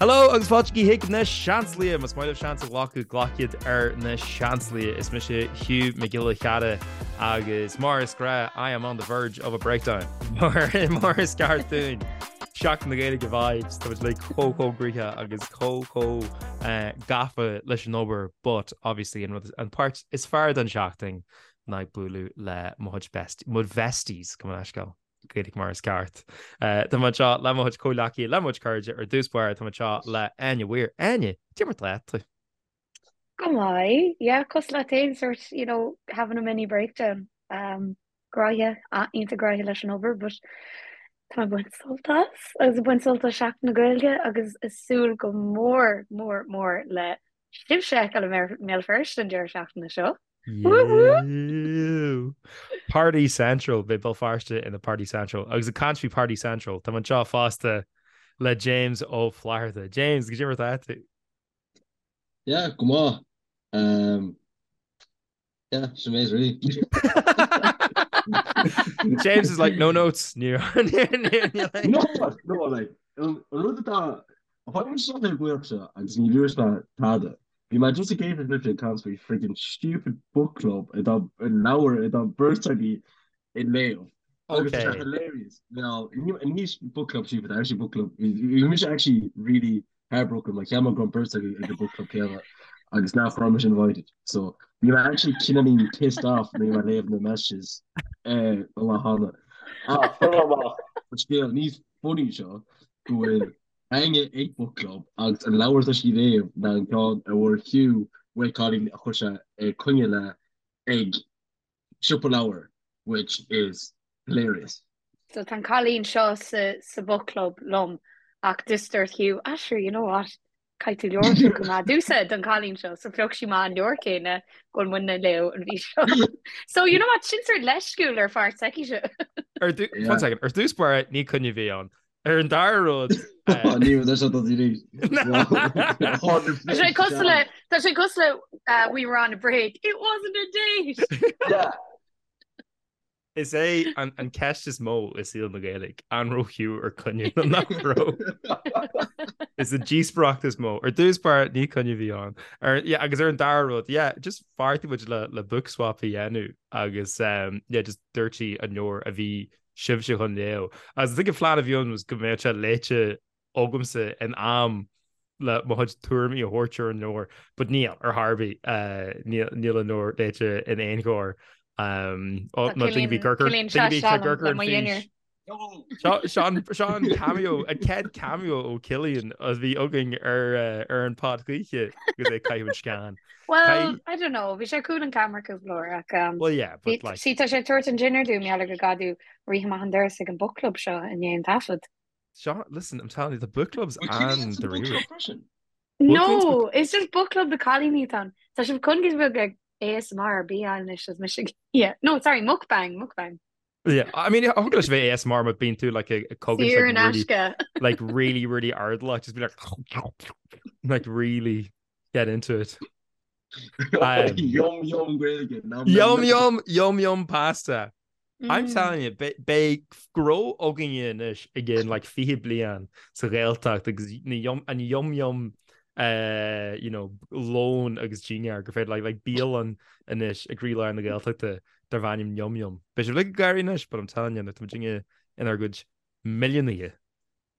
Hello agus fáilte chuig na Seansálaithe! Más maith libh seans a ghlacadh, glac iad ar na Seansálaithe. Is mise Hugh Mac Giolla Chearra agus mar is gnách, I am on the verge of a breakdown. Mar mar is ceart dúinn. Seachtain na Gaeilge vibes, tá muid like chomh chomh gnoitheach agus chomh chomh eh, gafa leis an obair, but obviously an rud an páirt is fearr den seachtain ná ag bualadh le mo chuid best, mo bhesties, gabh mo leithscéal. Gaeilge mar is ceart. Tá mé anseo le mo chuid comhghleacaithe, le mo chuid cairde ar dtús báire, tá mé anseo le Áine Weir. Áine, cad é mar atá tú? Go maith, yeah, cosúil leat féin, sort, you know, having a mini breakdown. Um, gnoitheach, iontach gnoitheach leis an obair, but tá mé ag baint sult as, agus ag baint sult as Seachtain na Gaeilge agus ag súil go mór, mór, mór le sibhse a fheiceáil i mBéal Feirste an deireadh seachtaine seo. Woo! Party Central, beidh Béal Feirste ina Party Central. Agus ag caint faoi Party Central, tá mé anseo fosta le James Ó Flatharta. James, cad é mar atá tú? Yeah, go maith. Um, yeah, sin é really. James is like, no notes. No, no, like, an rud atá Tháinig seo ar buíoch seo agus ní dúirt mé tada. Bhí mé just ag éisteacht libhse ag caint faoi friggin stupid book club atá leabhar atá beirt agaibh ag léamh. Agus tá sé hilarious. Now, ní book club stupid, actually book club. Bhí mise actually really heartbroken mar cheap mé go raibh beirt agaibh ag an book club céanna agus nach raibh mise invited. So bhí mé actually cineáilín pissed off nuair a bhí mé ag léamh na messages an lá cheana. Ach, amach, an scéal níos funny seo go bhfuil Áine ag book club agus an leabhar atá sí ag léamh ná an ceann a bhfuair Hugh uaidh cailín a chuir sé ag coinne le ag siopa leabhar which is hilarious. So tá an cailín seo sa sa book club liom ach just dúirt Hugh, ah sure you know what, caithfidh tú leabhar a phiocadh amach domhsa don chailín seo so phioc sí amach an leabhar céanna go bhfuil muidne ag léamh an mhí seo. So you know what, sin sort leisciúil ar pháirt s'aici. Ar one second, ar dtús báire ní coinne a bhí ann. Ar an dara rud Ní raibh sé do arís. Tá sé cosúil le tá sé cosúil le we were on a break. It wasn't a date. Yeah. Is é an an ceist is mó i saol na Gaeilge, an raibh Hugh ar coinne nó nach raibh. Is an díospóireacht is mó. Ar dtús báire ní coinne a bhí ann. Ar yeah, agus ar an dara rud, yeah, just bheartaigh muid le le book swap a dhéanamh agus um, yeah, just dúirt sí an leabhar a bhí sibhse chun léamh. Agus I think an phlean a bhí ann was go mbeadh sé léite agamsa in am le mo chuid tuairimí a thabhairt ar an leabhar, but níl, ar chor ar bith, níl níl an leabhar léite in aon chor. Um, ó, Tá nó daoine bhí Cillian Gurgur, Cillian daoine bhí seo Gurgur le an mo fís. dhinnéar. Seo seo an seo an cameo, an chéad cameo ó Cillian a bhí againn ar eh, ar an pod choíche agus é ag caitheamh an scean. Well, Caith- I don't know, bhí sé cúl an camera cúpla uair ach um, Well yeah, bhí but like sí tá sé ag tabhairt an dinnéar dúinn mar gheall go gcaithfidh tú rith amach an doras ag an book club seo i ndiaidh an taifead. Seo, listen, I'm telling you, the book club's Bhfuil Cillian an sa book dáiríre. club freisin? No, it's just book club do cailíní atá ann. Tá sibh chun go bhfuil ag ASMR ar bith anois is mise yeah. No, sorry, mukbang, mukbang. Yeah, I mean, thig leis bheith ASMR má bíonn tú like ag cogaint Saor in like really, aisce. like really, really airdeallach, just be like like really get into it. Um, Yum yum Gaeilge. Nom nom Yum nom. yum yum yum pasta. I'm Mm. telling you, beidh gnó againne anois i gcionn like 20 bliain sa Ghaeltacht agus na yum, an yum yum uh, you know, lón agus dinnéar gur féidir like, like bialann anois i gcroílár na Gaeltachta darb ainm Yum Yum. Beidh sibh uilig ag gáirí anois, but I'm telling you, nuair atá muidinne inár gcuid milliúnaithe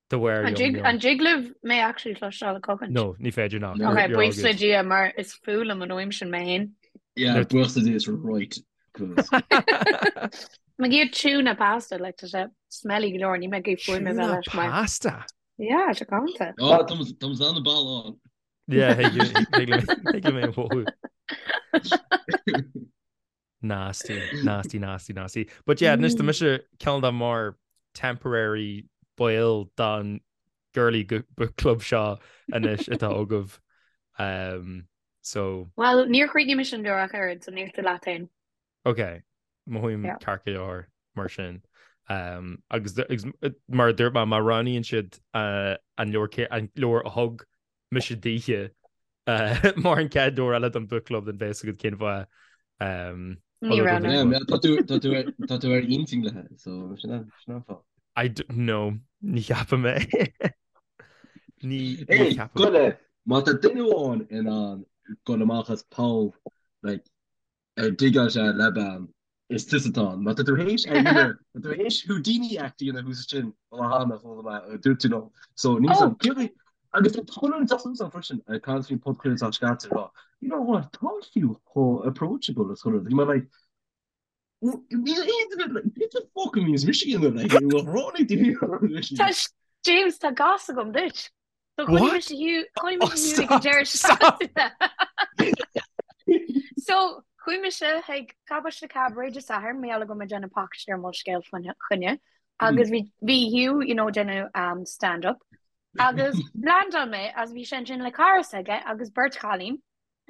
de bharr An Yum dtig Yum. an dtig libh mé actually cloisteáil ag cogaint? No, ní féidir ná. No. You're, Ok, you're all buíochas le good. Dia mar is fuath liom an fhuaim sin mé féin. Yeah, Nuair buíochas le Dia is right. 'Cause Mé ag iarraidh tuna pasta, like tá sé smelly go leor, níl mé ag iarraidh fuaim a bheith Tuna leis mar. pasta. Yeah, tá galánta. Oh, tá an ball on. Yeah, thig liom é a mhothú. Nasty, nasty, nasty, nasty. But yeah, anois tá mise cineál de mar temporary ball don girly book club seo anois atá agaibh. Um, so. Well, níor chríochnaigh mise an leabhar ach oiread, so níl tú leat féin. Ok, mothaím Yeah. ceart go leor mar sin. Um, agus, agus mar a dúirt mé, má roghnaíonn siad uh, an leabhar an leabhar a thug mise daoithe mar an chéad leabhar eile don book club then beidh a fhios agat cén fáth. Ní raibh na. Tá tú tá tú ar tá tú ar intinn léi so sin an sin an fáth. I don't know ní cheapaim é. Ní ní ceapaim. Goile, má tá duine amháin in ann dul amach as poll like ar digeáil sé le bean, is tusa atá ann. Má tá tú théis ar dhéanamh, má tá tú théis Houdini act a dhéanamh thuas ansin, ó cheana, chuala mé, dúirt tú liom. So níl Oh! Céard agus tá Conor ag teacht freisin ag caint faoin podchraoladh atá scaite ag rá, you know what, tá Hugh chomh approachable is chuile rud. Bhí mé like, níl aon duine like, what the fuck a bhíonns mise a dhéanamh like, ráinig daoine Tá James, tá gas agam duit. So chonaic mise Hugh, chonaic Oh, mise Hugh ag an stop, deireadh stop. seachtaine. So chuaigh mise chuig Cabáiste Cabaret Dé Sathairn, mar gheall go raibh mé ag déanamh pacáiste ar Molscéal fá choinne agus bhí bhí Hugh, you know, déanamh um, stand-up agus landáil mé agus bhí sé ansin le cara s'aige agus beirt chailín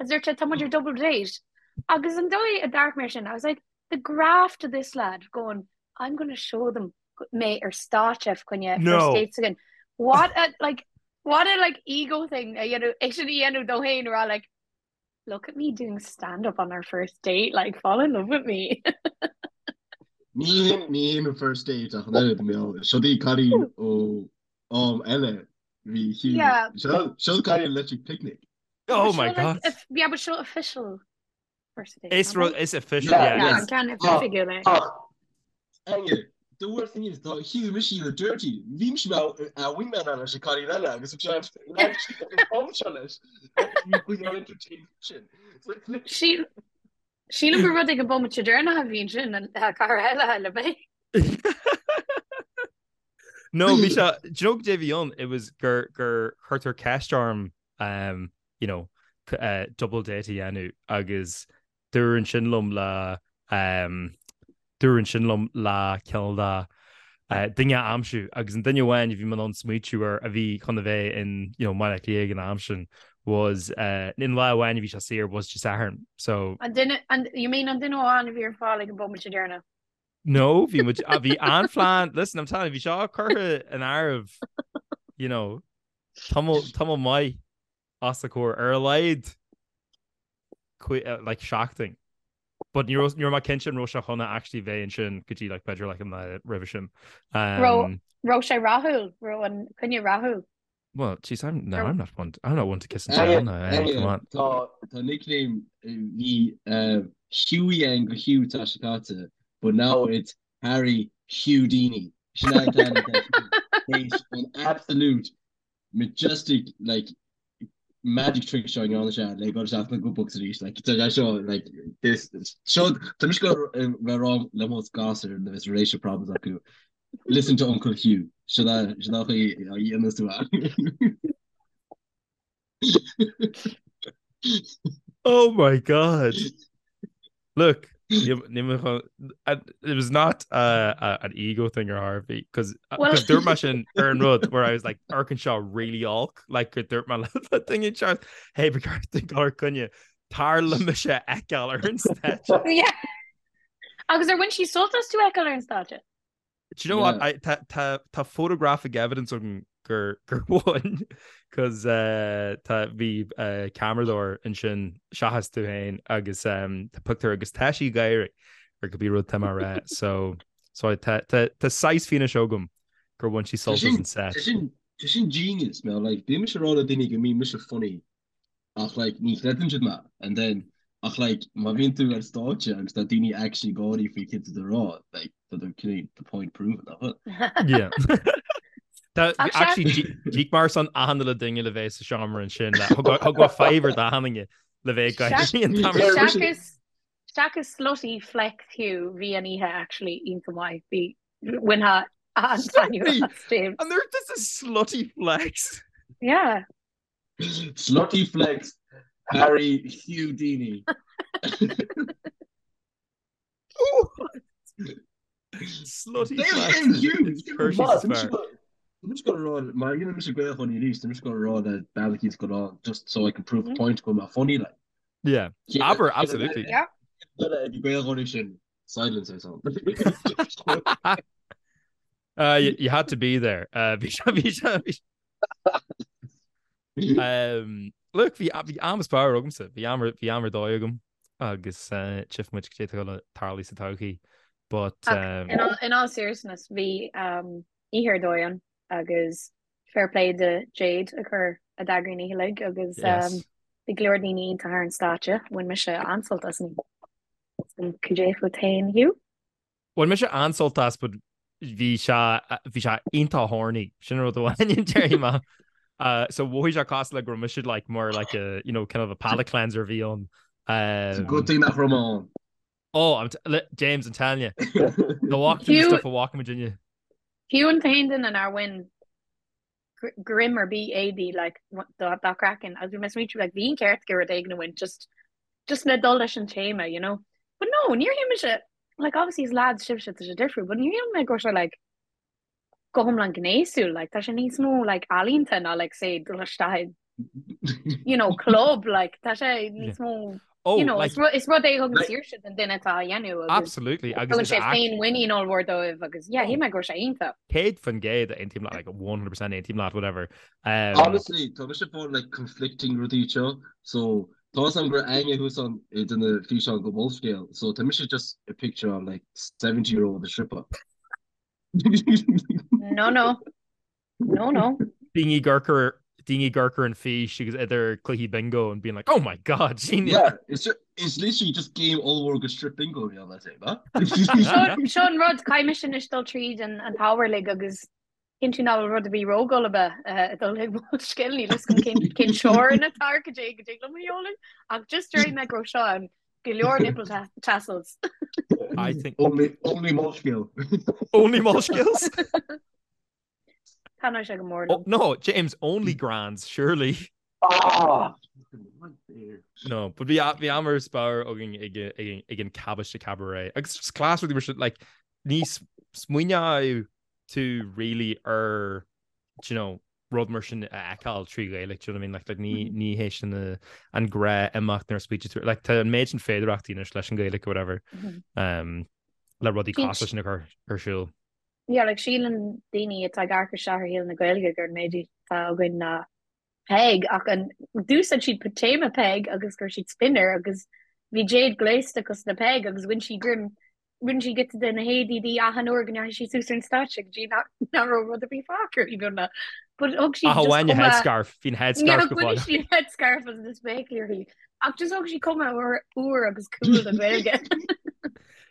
agus dúirt sé tá muid ar double date agus an dóigh a d'amharc mé air sin I was like the graft of this lad going I'm gonna show them mé ar stáitse fá choinne No. first dates again. What a like what a like ego thing a dhéanamh é sin a dhéanamh dó féin a rá like look at me doing stand up on our first date like fall in love with me. Ní hin ní hin an first date ach an oiread mé seo í cailín ó am eile bhí Hugh Yeah. seo seo cailín Electric Picnic. Oh But my seo like God. if, yeah but seo official first date Is nach rud é? is official Yeah, yeah Yeah, is an ceann Ach oifigiúil é. ach Anya, the worst thing is tá Hugh mise you dirty. Bhí mise mar a wingman leis an cailín eile agus thug sé an seo leis. Bhí chuig an entertain sin. So Sí Sílim gur rud ag an bomaite deireanach a bhí ansin an cara eile le mé. No, bhí sé, do you know goidé a bhí ann? It was gur gur chuirtear ceist orm um, you know, uh, double date a dhéanamh agus dúradh ansin liom le um, dúradh ansin liom le cineál de uh, duine a aimsiú agus an duine amháin a bhí mé in ann smaoitiú air a bhí chun a bheith in you know, Baile Átha Cliath ag an am sin was uh, in lá amháin a bhí sé saor was Dé Sathairn. So An duine, an, you mean an duine amháin a bhí ar fáil ag an bomaite deireanach? No, bhí muid bhí an-phlean, listen, I'm telling you, bhí seo curtha in áirithe, you know, tamall tamall maith os a comhair ar a laghad like seachtain. But ní raibh ní raibh mé cinnte an raibh sé chun a actually bheith ansin go dtí like b'fhéidir like an lá roimhe sin. Raibh raibh sé rathúil, raibh an coinne rathúil. Well, jeez, I'm no, I'm not one I'm not one to kiss and tell now. Hey, come on. Tá tá nickname bhí uh, Hughie ann go Hugh tá sé caite, but now it's Harry Houdini. Sin an ceann atá théis an absolute majestic like magic trick seo ndearna sé le dul isteach na good books arís like tá sé seo like this seo tá mise go bheith rá le mo gasúir nuair is relationship problems acu listen to Uncle Hugh sin é sin é an chaoi a dhéanas tú é. Oh my God. Look, it was not uh, uh, an ego thing or Harvey because Well- dúirt mé sin ar an rud where I was like amharcann seo really olc like gur dúirt mé le thing in charge hey ba ceart duit dul ar coinne tar le mise a fheiceáil ar an stáitse. Yeah. Agus ar bhain sí sult as tú a fheiceáil ar an stáitse? Do you know what? I, tá, tá, tá photographic evidence agam gur, gur bhain cos uh, tá, bhí uh, ceamaradóir ansin seachas tú féin agus um, tá pictiúr agus tá sí ag gáire ar cibé rud tá mé a rá. So, so tá, tá, tá saghas fianaise agam gur bhain sí Tá sult as sin an set. tá sin tá sin genius man like bíonn mise ag rá le daoine go mbíonn mise funny Ach like ní chreideann siad mé and then ach like má bhíonn tú ar stáitse agus tá daoine actually ag gáirí faoi cad tá tú a rá like tá tú cineál the point proven nach bhfuil? Yeah. Tá Ach sea. actually d'íoc mé ar son achan uile duine le bheith sa seomra ansin le thug thug mé fiver d'achan duine le bheith ag gáirí an t-am ar fad. Seachas seachas slutty flex Hugh bhí an oíche actually iontach maith. Bhí bhainfeá an-taitneamh as James. And they're just a slutty flex. Yeah. Slutty flex Harry Houdini. Slutty flex. I'm just gonna rá mar dhéanann mise Gaeilge arís, I'm just gonna rá le bean go rá just so I can prove a point go mbeadh funny like. Yeah. Aber absolutely. Yeah. Gaeilge sin silence or something. Uh, you, you had to be there. Uh, bhí sé bhí sé bhí Um, look, bhí bhí am is fearr agamsa, bhí am bhí am ar dóigh agam agus uh, tchífidh muid cad é atá le tarlú sa todhchaí. But Ach um, in all, in all seriousness, bhí um, oíche ar dóigh ann agus Fair play do Jade a chur a d'eagraigh an oíche uilig agus bhí go leor daoine iontach ar an stáitse. Bhain mise an-sult as an oíche. Cad é fút féin, Hugh? Bhain mise an-sult as but bhí sé bhí sé iontach horny sin rud amháin déarfaidh mé. Uh, so mhothaigh sé cosúil le go raibh mise like more like a you know kind of a palate cleanser a bhí ann. It's a good thing nach raibh mé ann. Oh, I'm t le James I'm telling you. The walk through the stuff a bhfaca muidinne. Hugh an t-aon duine nár bhain greim ar bith éadaí like dá craiceann agus bhí mé ag smaointiú like bhí an ceart aige rud éigin a bhaint just just le dul leis an téama you know. But no, níor shíl mise like obviously is lads sibhse tá sé difriúil but níor shíl mé go raibh sé like go hiomlán gnéasúil like tá sé níos mó like ealaíonta ná like say dul isteach i you know club like tá sé níos mó Oh, you know like, is rud is rud é a thugann saoirse don duine atá á dhéanamh agus absolutely agus tugann is sé act féinmhuinín ollmhór dóibh agus yeah oh, shíl mé go raibh sé iontach. 100% aontaím leat like 100% aontaím leat whatever. Um, Honestly, tá mise ag fáil like conflicting rudaí seo, so tá a fhios agam go raibh Áine thuas ann i duine físeán go Molscéal, so tá mise just ag picture like 70 year old ag stripadh. No no. No no. Daoine ag amharc ar daoine ag amharc ar an fís agus idir cluichí bingo and being like oh my god sin Yeah, it's just, it's literally just game ollmhór go strip bingo bhí ann let's say, ba? Seo an rud caithfidh mise anois dul tríd an an t-ábhar uilig agus cinntiú nach bhfuil rud ar bith róghulaba ag dul ag Molscéal níl fhios agam cén cén teorainn atá ar cad é go dtig liom a sheoladh ach just déarfaidh mé go raibh seo ann go leor nipple tassels. I think Only, only Molscéal. only Molscéals? Taitneoidh sé go mór Oh, liom. no, James, only grands, surely. Ah! No, but bhí bhí am ar spár againn ag ag ag an Cabbaiste Cabaret. Agus just class rudaí mar sin, like, ní smaoineodh tú really ar, do you know, rud mar sin a fheiceáil trí Ghaeilge, do you know what I mean? Like, like ní, ní hé sin an gnáthimeacht nuair a smaoitíonn tú, like, tá an méid sin féidearthachtaí anois leis an Ghaeilge or whatever, um, le rudaí cosúil leis sin a chur ar siúl. Yeah, like, síleann daoine atá ag amharc isteach ar shaol na Gaeilge gur an méid atá againn ná Peig ach an d'úsáid siad téama Peig agus chuir siad spin air agus bhí Jade gléasta cosúil le Peig agus bhain sí greim rinne sí giota de na héadaí di achan uair go ndeachaigh sí suas ar an stáitse go dtí nach raibh rud ar bith fágtha uirthi beagnach. But thug sí Ach just amháin a cuma headscarf, bhí an headscarf go bhain fóill. sí an headscarf agus na spéaclaí uirthi. Ach just thug sí cuma úr úr agus cool don Ghaeilge.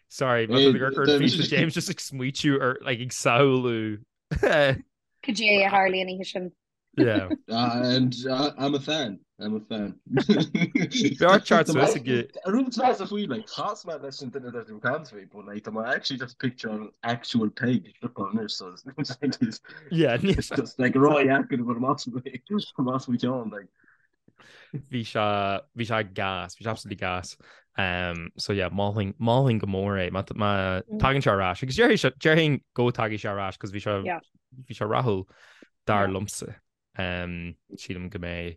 Sorry, má tá tú ag amharc ar an fís James just ag smaoitiú ar like ag samhlú. Cad é a tharla an oíche sin. Yeah. And I'm a fan. I'm a fan. B'fhearr teacht suas ag. Rud is a faoi like chas mé leis an duine atá ag caint faoi, but like tá mé actually just picture an actual Peig ag stripeáil anois so it's Yeah, it's just like ródheacair a bhur más más faoi cheann like. Bhí sé bhí sé gas, bhí sé absolutely gas. Um, so yeah, mholfainn mholfainn go mór é má má tagann sé ar ais. Agus déarfaidh sé déarfainn go dtagfaidh sé ar ais cos bhí sé Yeah. bhí sé rathúil dar liomsa. Sílim go mbeidh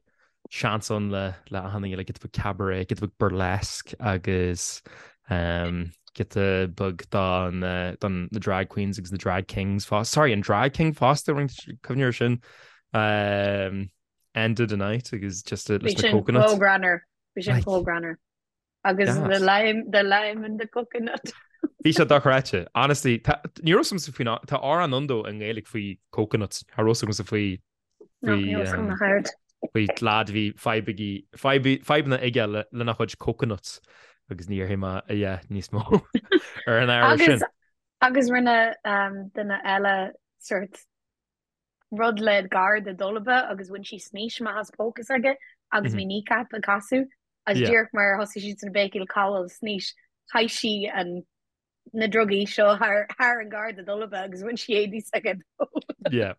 seans ann le le achan duine, like giota beag cabaret, giota beag burlesque agus giota beag don don na drag queens agus na drag kings fosta. Sorry, an drag king fosta, cuimhne ar sin. End of the night agus just leis na coconuts. Bhí sin chomh greannmhar. Bhí sin chomh greannmhar. Agus the lime, the lime and the coconut. Bhí sé dochreidte. Honestly, tá, ní raibh a fhios agamsa faoin, tá amhrán ann though i nGaeilge faoi coconuts. Cha raibh a fhios agamsa faoi, No, faoi, ní raibh a fhios agam um, nach aird. faoi lad a bhí fadhb aige, fadhb, fadhbanna aige le, lena chuid coconuts. Agus ní dhéarfaidh mé a dhath níos mó ar an ábhar Agus, sin. agus rinne um, duine eile sort rud le garda dolba agus bhain sí snaois amach as póca s'aige agus bhí Kneecap ag casadh agus díreach mar a thosaigh siad sna béicíl cá bhfuil snaois chaith sí an na drugaí seo thar thar an garda dolba agus bhain sí éadaí s'aige dó. Yeah.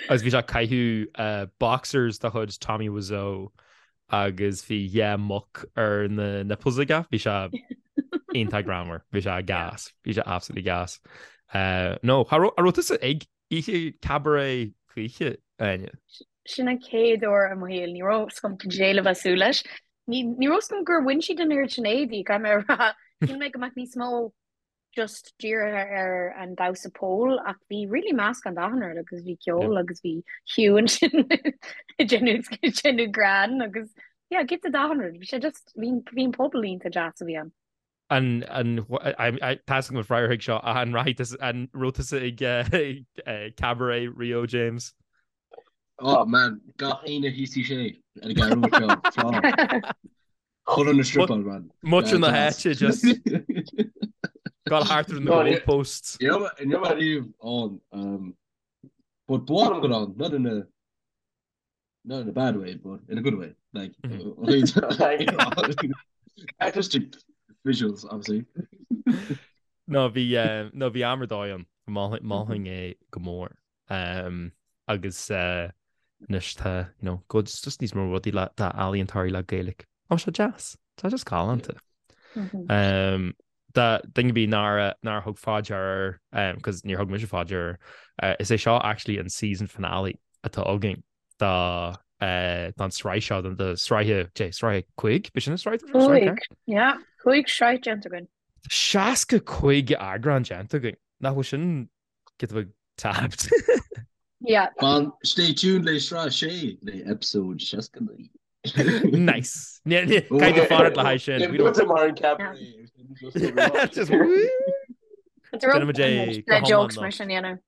Agus bhí sé ag caitheamh boxers de chuid Tommy Wiseau agus bhí dhá muc ar na nipples aige. Bhí sé iontach greannmhar. Bhí sé gas. Bhí sé absolutely gas. No, an raibh tusa ag Oíche cabaret choíche, Áine. Sin an chéad uair i mo shaol, ní raibh 's agam cad é le bheith ag súil leis. Ní ní raibh 's agam gur bhain siad an oiread sin éadaí, caithfidh mé a rá. Shíl mé go mbeadh níos mó just dírithe ar an damhsa pole ach bhí really meascán d'achan rud agus bhí ceol agus bhí Hugh ansin ag déanamh ag déanamh greann agus yeah, giota d'achan rud. Bhí sé just bhí bhí an pobal iontach deas a bhí ann. An, an, tá a fhios agam an freagra chuig seo, ach an rachaidh tusa, an raibh tusa ag cabaret Rio James? Oh man, gach aoine thíos sé ar an gceathrú seo. Chuile na stripáil man. Muintir na háite just gal thart ar na goalposts. Ní raibh mé riamh ann. But ba mhaith liom dul ann, not in a not in a bad way, but in a good way. Like, artistic visuals, obviously. No, bhí no bhí am ar dóigh ann. Mholfainn é go mór. Um, agus uh, anois tá you know, go just níos mó rudaí le tá ealaíontóirí le Gaeilge. Tá sé deas. Tá just galánta. Mm-hmm. Um, do dhuine ar bith nár nár thug faoi deara um, cos níor thug mise faoi deara uh, is é seo actually an season finale atá againn do uh, don sraith seo don do sraithe dé sraith 5 b'shin an sraith Cúig, yeah, 5 sraith déanta againn. 65 eagrán déanta againn. Nach bhfuil sin giota beag tapped. Yeah. Fan, stay tuned le sraith 6 le episode 69. Nice. Caithfidh tú fanacht le haghaidh sin. We don't- mar an cabaret. Just woo. Déanfaidh muid é go Le jokes hiomlán mar sin dhéanamh.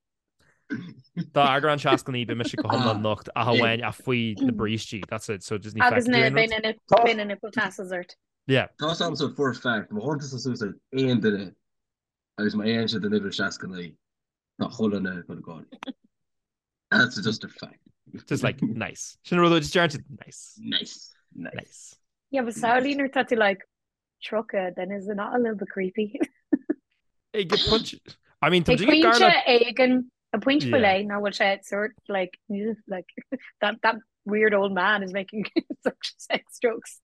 Dá eagrán 69 beidh mise go hiomlán nocht ach amháin ach faoi na brístí. That's it. So just ní Agus feicfidh na tú aon beidh rud. na nip- beidh na nipple tassels ort. Yeah. Tá a fhios agamsa for a fact, má chuireann tusa suas ar aon duine agus má fhaigheann siad an uimhir 69, tá chuile dhuine ag dul ag gáire. That's just a fact. Just like, nice. Sin rud just deir nice. Nice. Nice. Nice. Yeah, but samhlaigh nuair tá tú like 30, then is it not a little bit creepy? Ag pointe I mean, tá Ag muid ag pointe gar le éigin, ag pointe faoi Yeah. leith, nach bhfuil sé sort like, ugh, like that, that weird old man is making such sex jokes.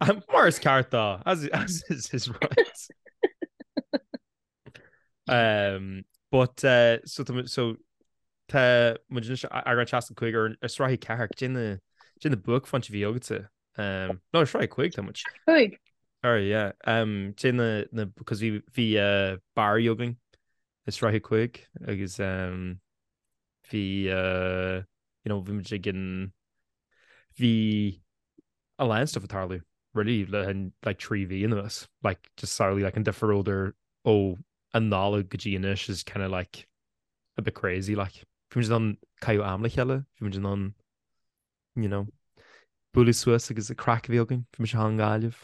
Um, mar is ceart dó, as, as is his right. Um, but uh, so tá muid- so tá muid anois eagrán 65 ar ar sraith 4 cad é na cad é na buaicphointí a bhí agatsa. Um, no, ar sraith 5 tá muid. Cúig. Sorry, yeah. Um, cad é na na because bhí bhí uh, Barry againn i sraith 5 agus um, bhí uh, you know, bhí muid ag an bhí a lán stuff ag tarlú really le an like 3 mhí anuas like just samhlaigh like an difear idir ó an Nollaig go dtí anois is kind of like a bit crazy like bhí muid in ann caitheamh am le chéile bhí muid in ann you know bualadh suas agus an craic a bhí againn bhí mise thall i nGaillimh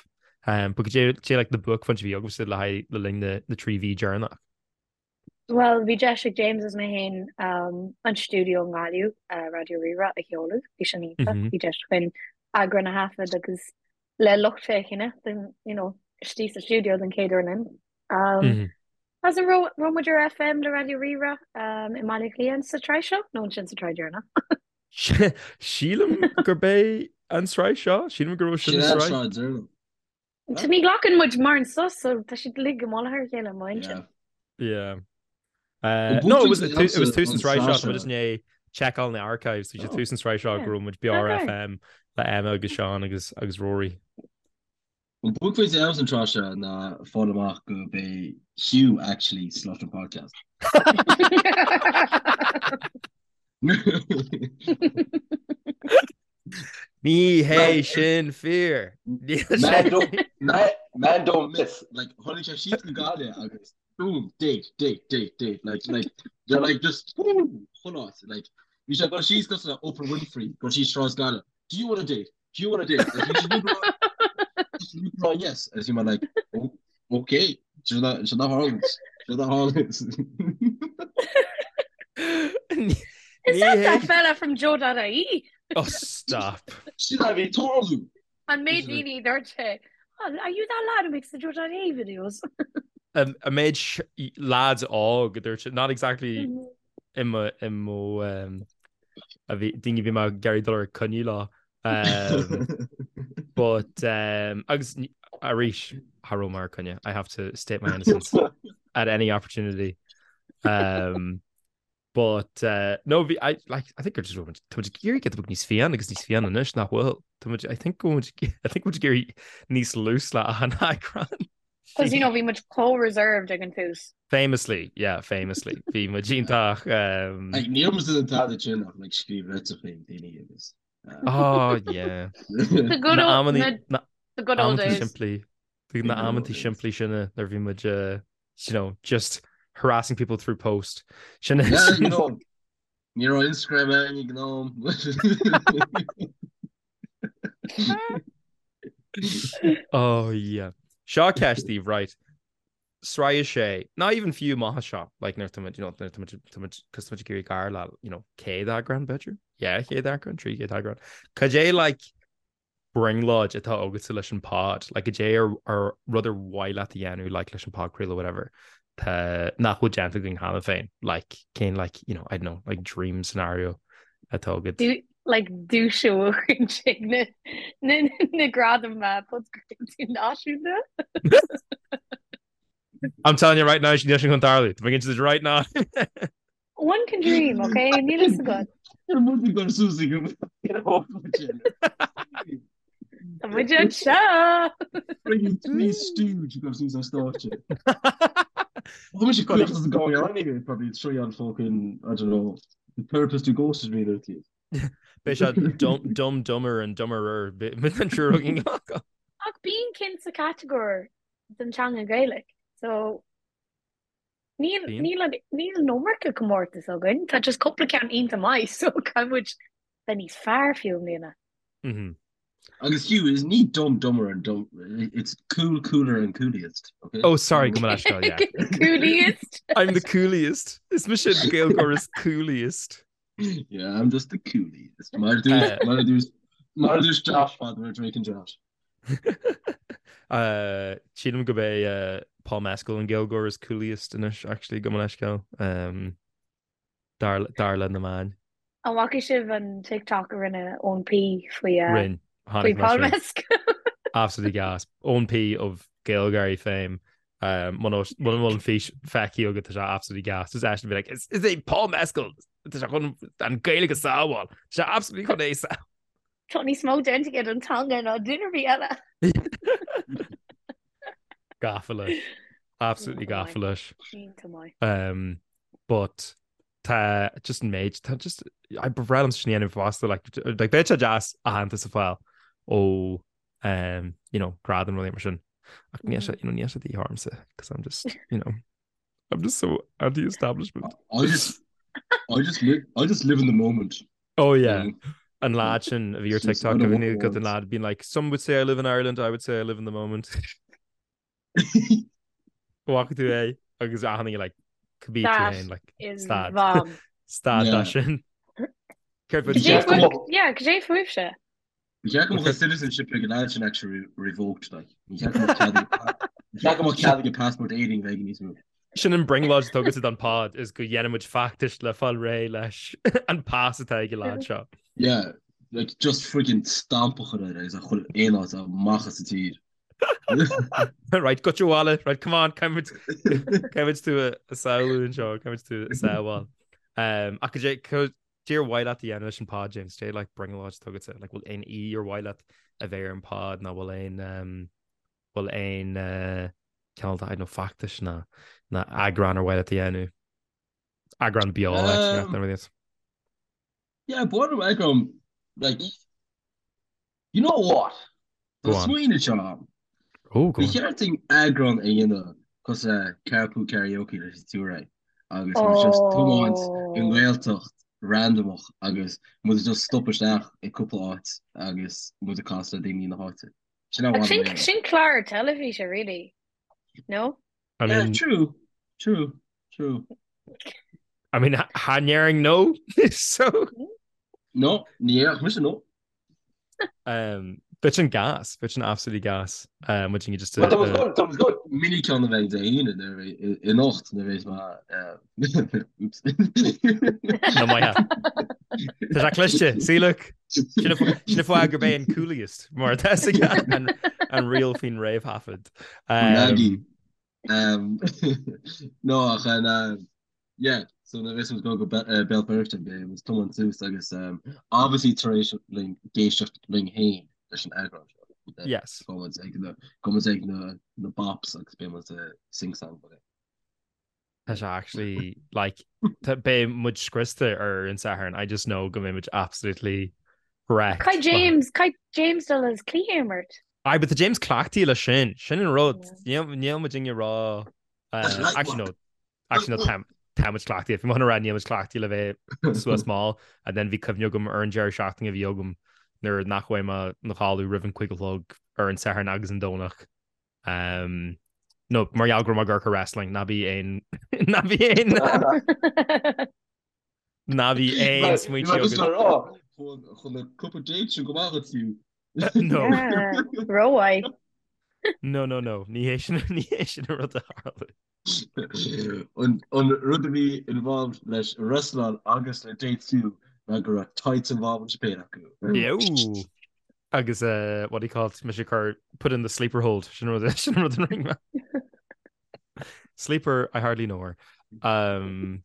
um, but cad é like na buaicphointí a bhí agaibhse le haghaidh le linn na, na 3 mhí deireanach. Bhuel, bhí deis ag James is mé féin an stiúideo i nGaillimh, Raidió Rí-Rá, a sheoladh. Bhí sin iontach. Bhí deis againn eagrán a thaifead agus le lucht féachana den, you know, istigh sa stiúideo den chéad uair linn. Agus an raibh raibh muid ar FM le Raidió Rí-Rá i mBaile Átha Cliath sa tsraith seo? Nó ansin sa tsraith dheireanach? Sílim gurb é an tsraith seo, sílim go raibh sin Sin an an tsraith. tsraith deireanach. Tá ní ghlacann muid mórán sos so tá siad uilig i mullach ar a chéile i m'intinn. Yeah. Uh, no, it was, it was tús an tsraith seo, tá just i ndiaidh checkáil na archives, bhí sé tús an tsraith seo go raibh muid beo ar FM le Emma agus Seán agus agus Rory. An buaicphointe agamsa an tráth seo ná fáil amach gurb é Hugh actually slut an podcast. Ní hé sin fíor. Man don't, man, man don't miss. Like, tháinig sé síos go Gaillimh agus boom, date, date, date, date. Like, like, they're like just boom, chuile áit. Like, bhí sé ag dul síos cosúil le Oprah Winfrey, dul síos Sráid Gaillimh. Do you want a date? Do you want a date? Like, bhí sé just rá yes. Agus bhí mé like, oh, okay. Sin a sin a tharlaíonn. Sin a tharlaíonn. Is that that fella from Joe.ie? Oh, stop. Sin a bhí ag tarlú. An méid daoine dúirt sé, oh, are you that lad who makes the Joe.ie videos? An méid lads óg dúirt sé, not exactly i mo i mo a bhí daoine a bhí mé ag iarraidh dul ar coinne leo. But um, agus arís cha raibh mé ar coinne. I have to state my innocence at any opportunity. Um, but uh, no bhí I like I think just tá muid ag éirí giota beag níos fiáine agus níos fiáine anois nach bhfuil. Tá muid I think go I think muid ag éirí níos loose le an eagrán. Because you know bhí muid chomh reserved ag an tús. Famously, yeah, famously. Bhí muid iontach. Um... Like, níl muid in tada sin ach like, scríobh litreacha chuig daoine agus. Oh, yeah. The good old, na, na, the good old days. Simplí, na amantaí simplí sin nuair bhí muid, uh, you know, just harassing people through post. Sin yeah, you know. Ní raibh Instagram ann ag an am. Oh yeah. Seo ceist daoibh, right. Sraith a sé, not even fiú amach anseo, like nuair tá muid, you know, nuair tá muid, tá muid, cos tá muid ag iarraidh gar le, you know, 100 eagrán b'fhéidir? Yeah, 100 eagrán, 300 eagrán. Cad é like brionglóid atá agatsa leis an pod, like cad é ar, ar rud ar mhaith leat a dhéanamh like leis an podchraoladh whatever, tá, nach bhfuil déanta againn cheana féin, like cén like, you know, I don't know, like dream scenario atá agat. Do, like duais a bhuachan ag na, na, na gradaim podchraoltaí náisiúnta. I'm telling you right now, níl sin chun tarlú. Tá mé ag inse duit right now. One can dream, ok? Níl fhios agat. Ar muid ag dul suas ag an Tá muid anseo! Bringing Three Stooge ag dul suas ar stáitse. Tá mise caoch as going on here, probably three on fucking, I don't know, the therapist who ghosted me there to you. Beidh sé dumb, dumb, dumber and dumberer an triúr againn. Ach bíonn cinn sa catagóir don teanga Gaeilge, so Níl níl an níl an iomarca comórtas againn, tá just cúpla ceann iontach maith so caithfidh muid bheith níos fearr fiú i mbliana. Agus Hugh, is ní dumb dumber and dumb, it's cool cooler and cooliest, okay? Oh sorry, gabh mo leithscéal, yeah. Cooliest. I'm the cooliest. Is mise an Gaeilgeoir is cooliest. Yeah, I'm just the cooliest. Mar a dúirt mar a dúirt mar a dúirt Josh fad we're drinking Josh. Sílim gurb é Paul Mescal an Gaeilgeoir is cooliest anois actually gabh mo leithscéal. Dar le na meáin. An bhfaca sibh an TikTok a rinne Eoin P faoi Rinne. faoi Paul Mescal? Absolutely gas. Eoin P of GaelGáirí fame. Muna bhfuil an fís feicthe agat tá sé absolutely gas. Just eisean bheith like, is é Paul Mescal tá sé chun an Gaeilge a sábháil. Tá sé absolutely chun é a Tá níos mó déanta aige don teanga ná duine ar bith eile. Gafa leis. Absolutely gafa leis. Iontach maith. Um, but tá just an méid tá just I ba bhreá liom sin a dhéanamh fosta like like beidh sé deas aitheantas a fháil ó um, you know, gradam rudaí mar sin. Ach níl sé you know, níl sé de dhíth ormsa because I'm just you know I'm just so anti-establishment. I just I just live I just live in the moment. Oh yeah. An lad sin a bhí ar TikTok a bhí got an lad been like some would say I live in Ireland, I would say I live in the moment. Bhfaca tú é agus ahanna like cibé tú féin like stad stad dá sin. Céard Yeah, cad é fúibhse? Ní cheart go mbeadh citizenship ag an lad sin actually revoked like. Ní cheart go mbeadh cead aige passport Éireann bheith níos mó. Sin an brionglóid atá agatsa don pod is go dhéanfaidh muid feachtas le fáil réidh leis an pas atá ag an lad seo. Yeah, like just friggin stamp a chur air agus a chur aon áit amach as an tír. Right, goitse abhaile, right, come on, caithfidh caithfidh tú a shamhlú anseo, caithfidh tú a shamháil. Um, ach cad é cad é ar mhaith leat a dhéanamh leis an pod, James, cad é like brionglóid atá agatsa, like bhfuil aon aoi ar mhaith leat a bheith ar an pod nó bhfuil aon um, bhfuil aon uh, cineál de, I don't know, feachtais ná ná eagrán ar mhaith leat a dhéanamh? Eagrán beo, actually, Um, nach rud yeah, ba mhaith liom eagrán, like, You know what? Go Tá on. smaoineamh seo agam. Oh, go Ba on. cheart dúinn eagrán a dhéanamh cosúil le Carpool Karaoke leis an Touré agus muid just tiomáint i Oh. nGaeltacht randamach agus muid just stop isteach i cúpla áit agus muid ag casadh le daoine na háite. Sin Ach an sin mhaith sin clár teilifíse, really. No? I Yeah, mean, true, true, true. I mean, cha ndéarfainn no, so. No, ní dhéarfadh mise no. Um, bheadh sin gas, bheadh sin absolutely gas. Um, muid just Tá go mini ceann a bheidh Dé hAoine nuair a bheidh anocht nuair a bheidh mé oops. No maith. Tá sé cliste, see look. Sin an fáth gurb é an cooliest mar tá an an riail faoin réamhthaifead. Um, Um, no ach an uh, yeah, so nuair a bheas muid ag dul go Be- uh, Béal Feirste beidh muid ag tiomáint suas agus um, obviously tar éis linn éisteacht linn féin leis an eagrán seo. Uh, Yes. Gabhfaidh muid ag na gabhfaidh muid ag na na bops agus beidh muid ag sing song but Tá sé actually like tá- beidh muid scriosta ar an Satharn. I just know go mbeidh muid absolutely wrecked. Caithfidh James, caithfidh James dul as cluiche a imirt. Aye, but tá James cleachtaithe leis sin. Sin an rud. Níl níl muid ag rá That's light actually no. work. Actually no tá. Tá muid cleachtaithe, bhí mé chun a rá níl muid cleachtaithe le bheith suas mall and then bhí cuimhne agam ar an deireadh seachtaine a bhí agam nuair nach bhfuair mé 'na chodladh roimh an 5 a chlog ar an Satharn agus an Domhnach. Um, no, mar gheall go raibh mé ag amharc ar wrestling, ná bí aon ná bí aon ná bí aon smaointe agat. Chun na cúpla date sin go maith agat fiú. No. Rómhaith. No, no, no, ní hé sin ní hé sin an rud a tharla. An rud a bhí involved leis an wrestling agus le date fiú ná go raibh tights involved sa péire acu. Ew. Agus uh, what do you call it? Mise cur put in the sleeper hold sin rud sin rud an ring Sleeper, I hardly know her. Um,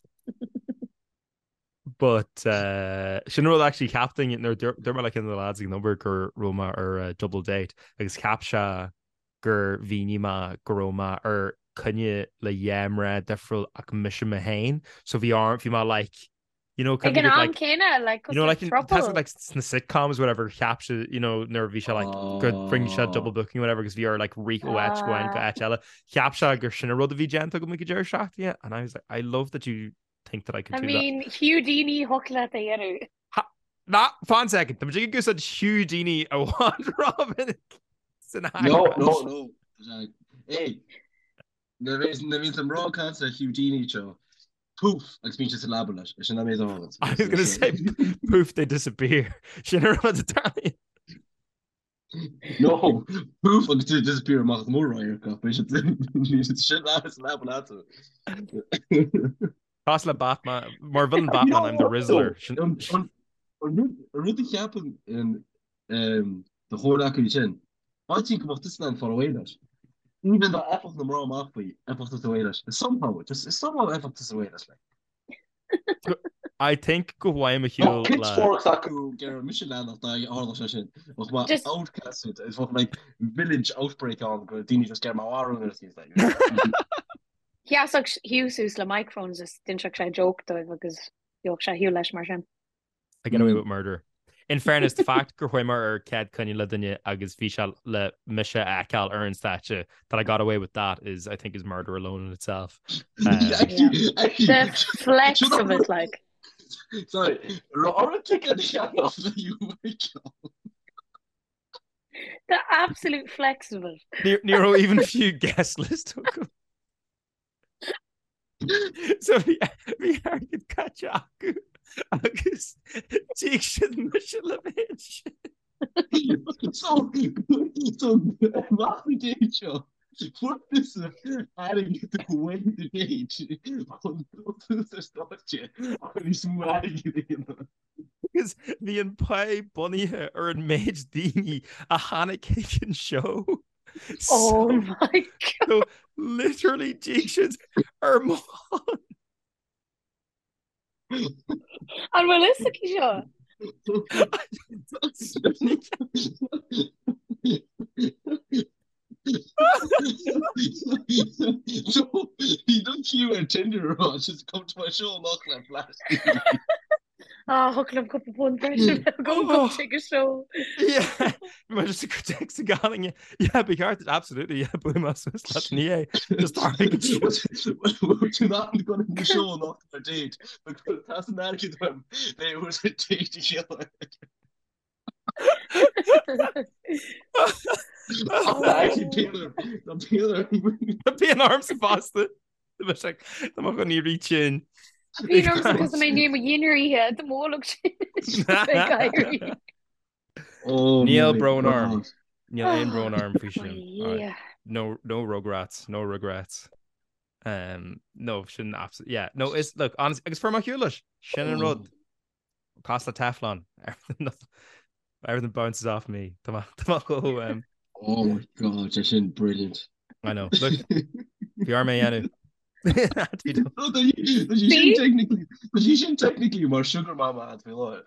but uh, sin rud actually cheapfainn nuair dúirt mé le ceann de na lads ag an obair go raibh mé ar uh, double date agus cheap sé gur mhínigh mé go raibh mé ar coinne le dhá mná difriúil ach mise mé féin so bhí orm bhí mé like you know Ag an am like, céanna like you know like throuple. like sna sitcoms whatever cheap sé you know nuair bhí sé like go rinne sé double booking whatever agus bhí air like rith ó áit go áit go áit eile cheap sé gur sin an rud a bhí déanta agam ag an deireadh seachtaine and I was like I love that you think that I could I do mean, that. Houdini thiocfadh leat a dhéanamh. Ná, fan second, tá muid ag úsáid Houdini i bhfad rómhinic san No, no, no. Hey, nuair a bhíonn an mná ag caint le Houdini seo, poof, agus bíonn sé sa leaba leis, sin an méid a I was gonna say, poof, they disappear. Sin an rud atá. No, poof agus tú disappear amach as mór-radharc ach beidh siad sin leat sa leaba leat. Cosúil le Batman, mar villain Batman, I'm the Rizzler. An rud a cheapann do chomhghleacaí sin, áitím go mbeadh tusa in ann fáil away leis. Even dá bhfaigheadh na mná amach faoi, bheadh tusa away leis. Somehow, just somehow bheadh tusa away leis. Like. I think go bhfaighim ar shiúl le. Pitchforks acu gur mise leanach dá tharla sé sin. Bheadh mé outcasted is bheadh like village outbreak ann go daoine just get marú nuair is like. Sheasfadh Hugh suas le microphones is d'inseodh sé joke dóibh agus gheobhadh sé ar shiúl leis mar sin. I get away with murder. In fairness, the fact gur chuaigh mé ar chéad coinne le duine agus bhí sé le mise a fheiceáil ar an stáitse that I got away with that is, I think, is murder alone in itself. Um, The flex of it, like. Sorry, raibh ticket a cheannach le you The absolute flex of it. Ní raibh even fiú guest list acu. So bhí bhí airgead caite acu agus d'íoc siad mise le bheith ansin. So so amach na date seo fuair tusa airgead away the date chun dul suas ar stáitse chun níos mó airgid a dhéanamh. Agus bhí an pá bunaithe ar an méid daoine a tháinig chuig an seó. Oh my God. So literally d'íoc siad ar mo shon. An bhfuil fhios aici seo? So bhí don queue ar Tinder rá just come to my show amach le flash. Ah, thiocfadh liom cúpla punt breise a bheith agam go chuig an seó. Yeah, mar just a text a galing. Yeah, ba cheart absolutely yeah, bu mas leat ní é. Just airgead. Tú nach go na show amach ar date, but tá san airgead uaim, they was a date a chéile. Bíonn ormsa fosta. Tá mo chun ní sin. Bíonn ormsa cos mé ní mo dhinnéar ithe do mhólag sin. Níl brón orm. Níl aon brón orm faoi sin. No no regrets, no regrets. Um, no sin yeah, no is look honest agus fuair mé ar shiúl leis sin an rud. Cosúil le Teflon. Everything bounces off me. Tá mé chomh um... Oh my God, sé sin brilliant. I know. Look, bhí orm é a dhéanamh. Tá sí sin technically mar sugar mama at faoi láthair.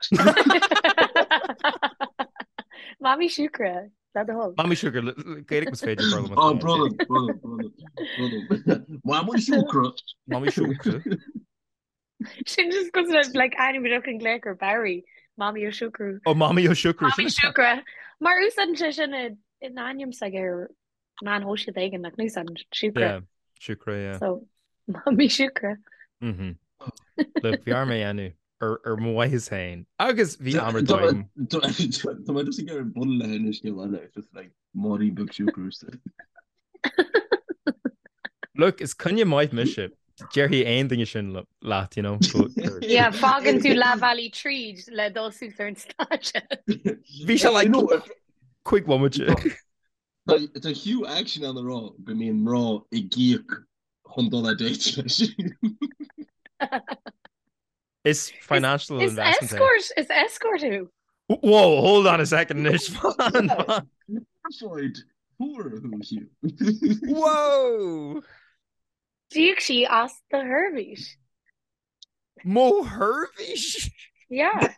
Mamaí siúcra, le do thoil. Mamaí siúcra, Gaeilge más féidir brother. Oh, brother, brother, brother, brother. Mamaí siúcra. Mamaí siúcra. Sin just cosúil le like ainm a an glaoch ar Barry, Mamaí Ó Siúcra. Ó Mamaí Ó Siúcra. Mamaí Siúcra. Mar úsáideann sé sin in ainm s'aige ar meán shóisialta éigin nach n-úsáideann Siúcra. Yeah, Siúcra, yeah. So, Mamaí Siúcra. Mhm. Look, bhí orm é a dhéanamh ar ar mo mhaitheas féin agus bhí am ar dóigh agam. Tá mé just ag iarraidh bualadh le hInis scéal eile, it's just like Máirín beag siúcra. Look, is coinne maith mise. Déarfaidh aon duine sin leat, you know. Yeah, fágann tú leath bealaigh tríd le dul suas ar an stáitse. Bhí sé like 5 bhomaite. Tá Hugh actually in ann a rá go mbíonn mná ag íoc chun dul ar date leis. Is financial Is investment é. escort, is escort thú. Whoa, hold on a second anois. Glorified whore thú, Hugh. Whoa! D'íoc sí as do sheirbhís. Mo sheirbhís? Yeah,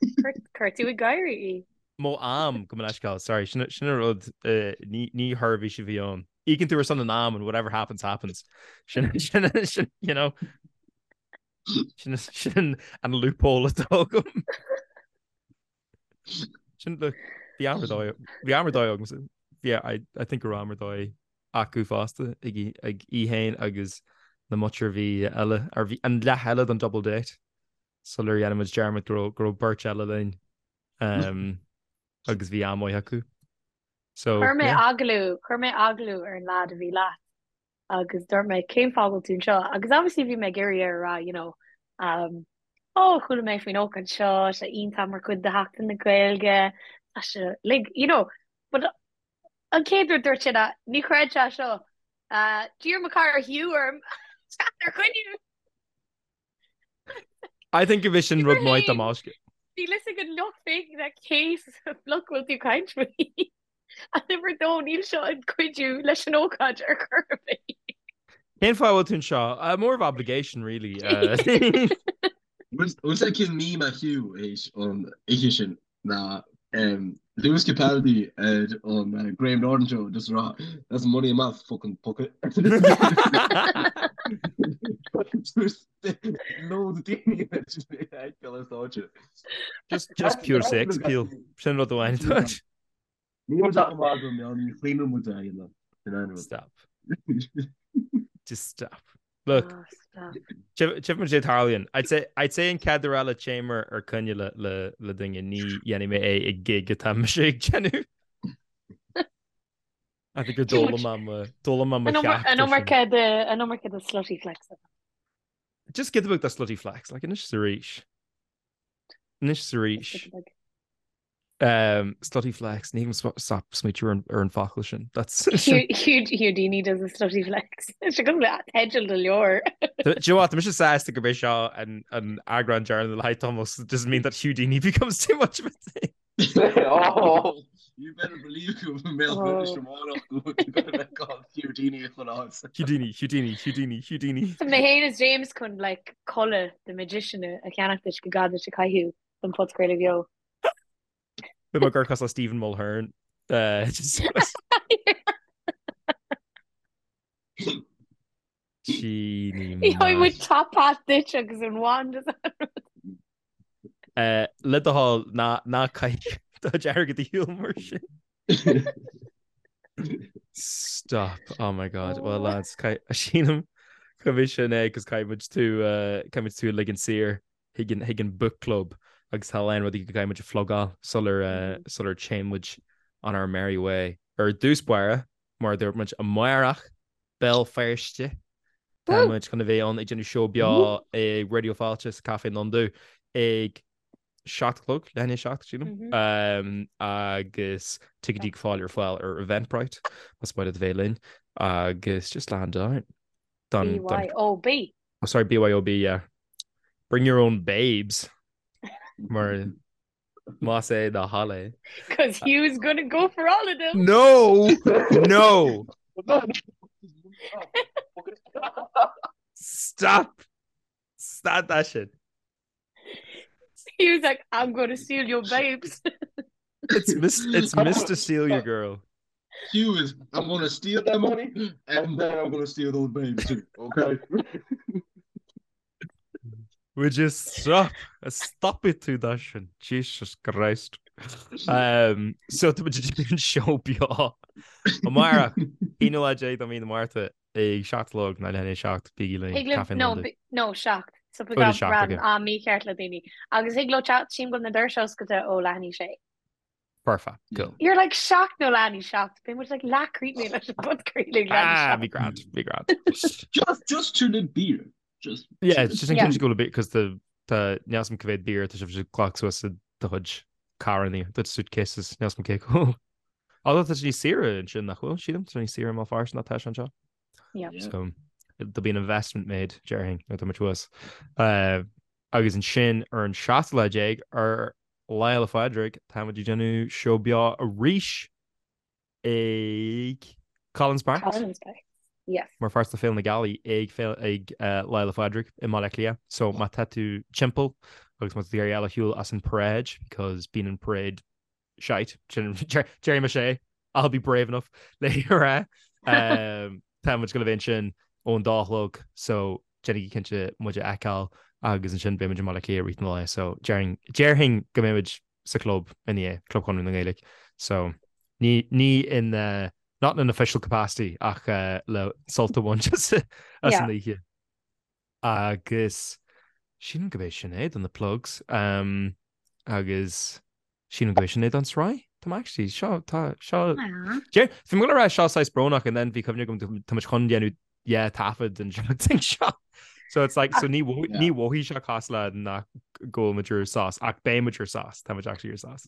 chuir tú ag gáirí í. Mo am, gabh mo leithscéal, sorry, sin an rud, ní sheirbhís a bhí ann. Íocann tú ar son an am and whatever happens, happens. Sin, sin, sin, you know, sin, sin an loophole atá agam. Sin, look, bhí am ar dóigh, bhí am ar dóigh agam, yeah, I, I think go raibh am ar dóigh acu fosta ag í, ag í féin agus na muintir a bhí eile, ar bhí an leath eile den double date sular dhein muid dearmad go raibh, go raibh beirt eile linn um, agus bhí am maith acu. So, Chuir mé yeah. agallamh, chuir mé agallamh ar an lad a bhí leat agus dúirt mé cén fáth a bhfuil tú anseo agus obviously bhí mé ag iarraidh air a rá you know um, oh chuala mé faoin ócáid seo, sé iontach mar chuid de Sheachtain na Gaeilge, tá sé like you know but an chéad rud dúirt sé ná ní chreid sé seo uh, d'iarr mo chara Hugh orm teacht ar choinne. I think go bhí sin rud maith dá mb'fhéidir. Bhí a fhios ag an lucht féachana cé sa bhloc bhfuil tú caint faoi. And uimhir a dó níl seo ag cuidiú leis an ócáid ar chor ar bith. Cén fáth a bhfuil tú anseo? Uh, more of obligation really. Uh, Bhfuil sé cén meme a Hugh théis an oíche sin ná um, Lewis Capaldi ar an uh, Graham Norton show just rá that's money in my fucking pocket. Lód daoine ar stáitse. Just just pure sex appeal. Sin rud amháin. Ní raibh sé chomh maith agam, ní chlaonann muid é a dhéanamh. Stop. Just stop. Look, Oh, stop. Tchífidh muid cé tarlaíonn. I'd say, I'd say an chéad uair eile téim ar coinne le, le, le duine ní dhéanfaidh mé é i gig atá mise ag déanamh. I think gur d'fhoghlaim mé mo, d'fhoghlaim mé mo An cheacht an ar sin. iomarca de, an iomarca de slutty flex. Just giota beag de slutty flex, like anois is arís. Anois is arís. Just giota beag. Um, slutty flex, ní thig liom stop smaoitiú ar an- ar an focal sin. That's Hugh, Hugh, Houdini does a slutty flex. Sé go le teideal do leabhar. Do you know what? Tá mise sásta gurb é seo an an eagrán deireanach le haghaidh Thomas. It doesn't mean that Houdini becomes too much of a thing. Oh, you better believe go mbeadh Oh. British amárach go bheith called Houdini chun áit. Houdini, Houdini, Houdini, Houdini. Tá mé féin is James chun like culaith the magician a cheannach duit go gá duit a chaitheamh don phodchraoladh beo. Bhí mé gur cos le Stephen Mulhern. Uh, just- Genie Gheobhaidh muid maith. top hat duit agus an wand is an rud. Uh, le do thoil ná ná caith do chuid airgid ar shiúl mar sin. Stop. Oh my God. Well lads, sílim gurb é sin é cos caithfidh muid tú uh, caithfidh muid tú a ligean saor. chuig an chuig an book club agus tá a lán rudaí go gcaithfidh muid a phlugáil sular sular téann muid on our merry way. Ar dtús báire, mar a dúirt muid amárach, Béal Feirste, tá muid chun a bheith ann ag déanamh seó beo ag Raidió Fáilte sa Café Londubh ag 7 a chlog, leath i ndiaidh a 7, sílim, agus ticéidí ag fáil ar fáil ar Eventbrite más maith leat a bheith linn agus just land down. Don, don, BYOB. Oh, sorry, BYOB, yeah. Bring your own babes. Mar más é do thoil é. Cos Hugh's gonna go for all of them. No! No! Stop! Stop that shit. He was like, I'm gonna steal your babes. It's mis it's Mr. Steal Your Girl. Hugh is, I'm gonna steal that money and then I'm gonna steal those babes too, okay? Would you stop? Stop it tú that sin. Jesus Christ. Um, so tá muid ag déanamh seó beo. Amárach, aonú lá déag de mhí na Márta ag 7 a chlog nó leath i ndiaidh a 7 bígí linn Thig libh, Café no, Londubh. no, 7. So bhí ran am mícheart le daoine. Agus thig leo teacht sílim go bhfuil na doirse oscailte ó leath i ndiaidh a sé. Perfect, cool. You're like 7 nó leath i ndiaidh a 7. Beidh muid like leath críochnaithe leis an bpodchraoladh leath i ndiaidh a Ah, bhí 7. grand, bhí grand. Just, just to the beer. Just Yeah, it's just in Yeah. case go bit because the the níl a fhios agam cá mhéad beer tá sibh ag glacadh suas i do chuid carranna, do suitcases, níl a fhios agam cé chomh. Although tá sé níos saoire ansin nach bhfuil, sílim, tá sé níos saoire i mBéal Feirste ná tá sé anseo. Yeah. Yeah. So there'll be an investment made, déarfainn, nuair atá muid thuas. Uh, agus ansin ar an seachtú lá déag ar Lá Fhéile Phádraig, táimid ag déanamh seó beo arís ag Collins Park. Collins Park. Yes. Mar pháirt de Féile na Gealaí ag Féile ag uh, Lá Fhéile Phádraig i mBaile Átha Cliath. So má tá tú timpeall agus má tá tú ag iarraidh dul ar shiúl as an parade because bíonn an parade shite. Déarfaidh mise é, I'll be brave enough le rá. Um, tá muid ag gabháil a bheith ansin ón dá a chlog so déanaigí cinnte muid a fheiceáil agus ansin beidh muid i mBaile Átha Cliath i rith an lae so déarfainn déarfainn go mbeidh muid sa chlub ina dhiaidh, Club Chonradh na Gaeilge. So ní ní in uh, not in an official capacity ach uh, le sult a bhaint as as Yeah. an oíche. Agus sílim go b'é sin é do na plugs. Um, agus sílim go b'é sin é don sraith. Tá mé actually seo tá seo Bhí mé ag rá seo saghas brónach and then bhí cuimhne agam tá muid chun déanamh yeah taifead an seachtain seo. So it's like so ní ní mhothaigh sé cosúil le nach go bhfuil muid ar sos ach beidh muid ar sos tá muid actually ar sos.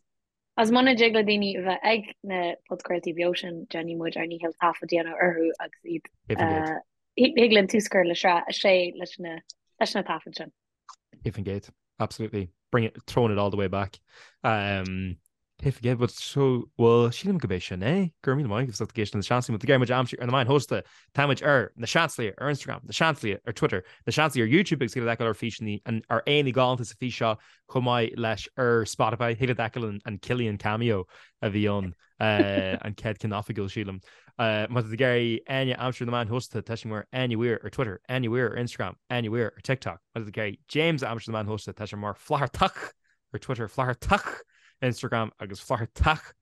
Agus muna dtig le daoine a bheith ag na podchraoltaí beo sin, déanfaidh muid ár ndícheall taifead a dhéanamh orthu agus iad Thig linn tús a chur le sraith a sé leis na leis na taifid sin. 100%. Absolutely. Bring it, throwing it all the way back. Um, 100%, but so, well, sílim go b'é sin é. Go raibh míle maith agaibh as ucht éisteacht le Na Seansálaithe. Má tá tú ag iarraidh muid a aimsiú ar na meáin shóisialta. Táimid ar Na Seansálaithe ar Instagram, Na Seansálaithe ar Twitter, Na Seansálaithe ar YouTube agus thig leat feiceáil ár bhfíseanna, ár n-aghaidheanna galánta sa fís seo chomh maith leis ar Spotify. Thig leat feiceáil an Cillian cameo a bhí ann. An chéad ceann oifigiúil, sílim. Má tá tú ag iarraidh Áine a aimsiú ar na meáin shóisialta, tá sí mar Áine Weir ar Twitter, Áine Weir ar Instagram, Áine Weir ar TikTok. Má tá tú ag iarraidh James a aimsiú ar na meáin shóisialta, tá sé mar Flathartach ar Twitter, Flathartach ar Instagram agus Flathartach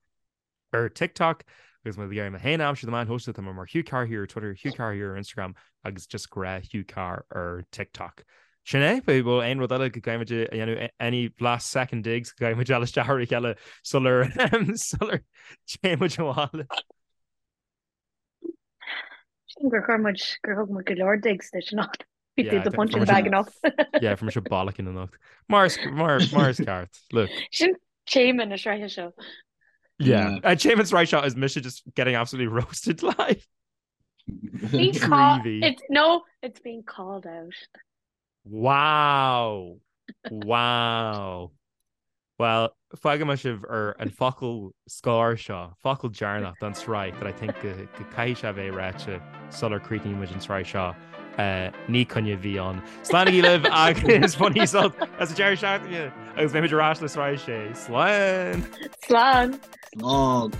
ar TikTok. Agus má tá tú ag iarraidh mé féin a aimsiú ar na meáin shóisialta, tá mé mar Hugh Carr here ar Twitter, Hugh Carr here ar Instagram agus just gnáth Hugh Carr ar TikTok. Sin é, bhfuil aon rud eile go gcaithfimid a dhéanamh, any last second digs go gcaithfimid dul isteach ar a chéile sular sular téann muid abhaile? Sílim gur chuir muid, gur thug muid go leor digs duit anocht. Bhí tú i do punching bag anocht. Yeah, fuair mise bollocking anocht. Mar is mar mar is ceart. Look. Sin téama na sraithe seo. Yeah. Uh, téama na sraithe seo is mise just getting absolutely roasted live. Being called, it's, no, it's being called out. Wow! Wow! Well, fágfaidh mé sibh ar an focal scoir seo, focal deireanach don tsraith that I think go caithfidh sé a bheith ráite sular críochnaíonn muid an tsraith seo. Uh, ní coinne a bhí ann. Slánaigí libh agus bainigí sult as an deireadh seachtaine agus beimid ar ais le sraith sé. Slán! Slán! Slán!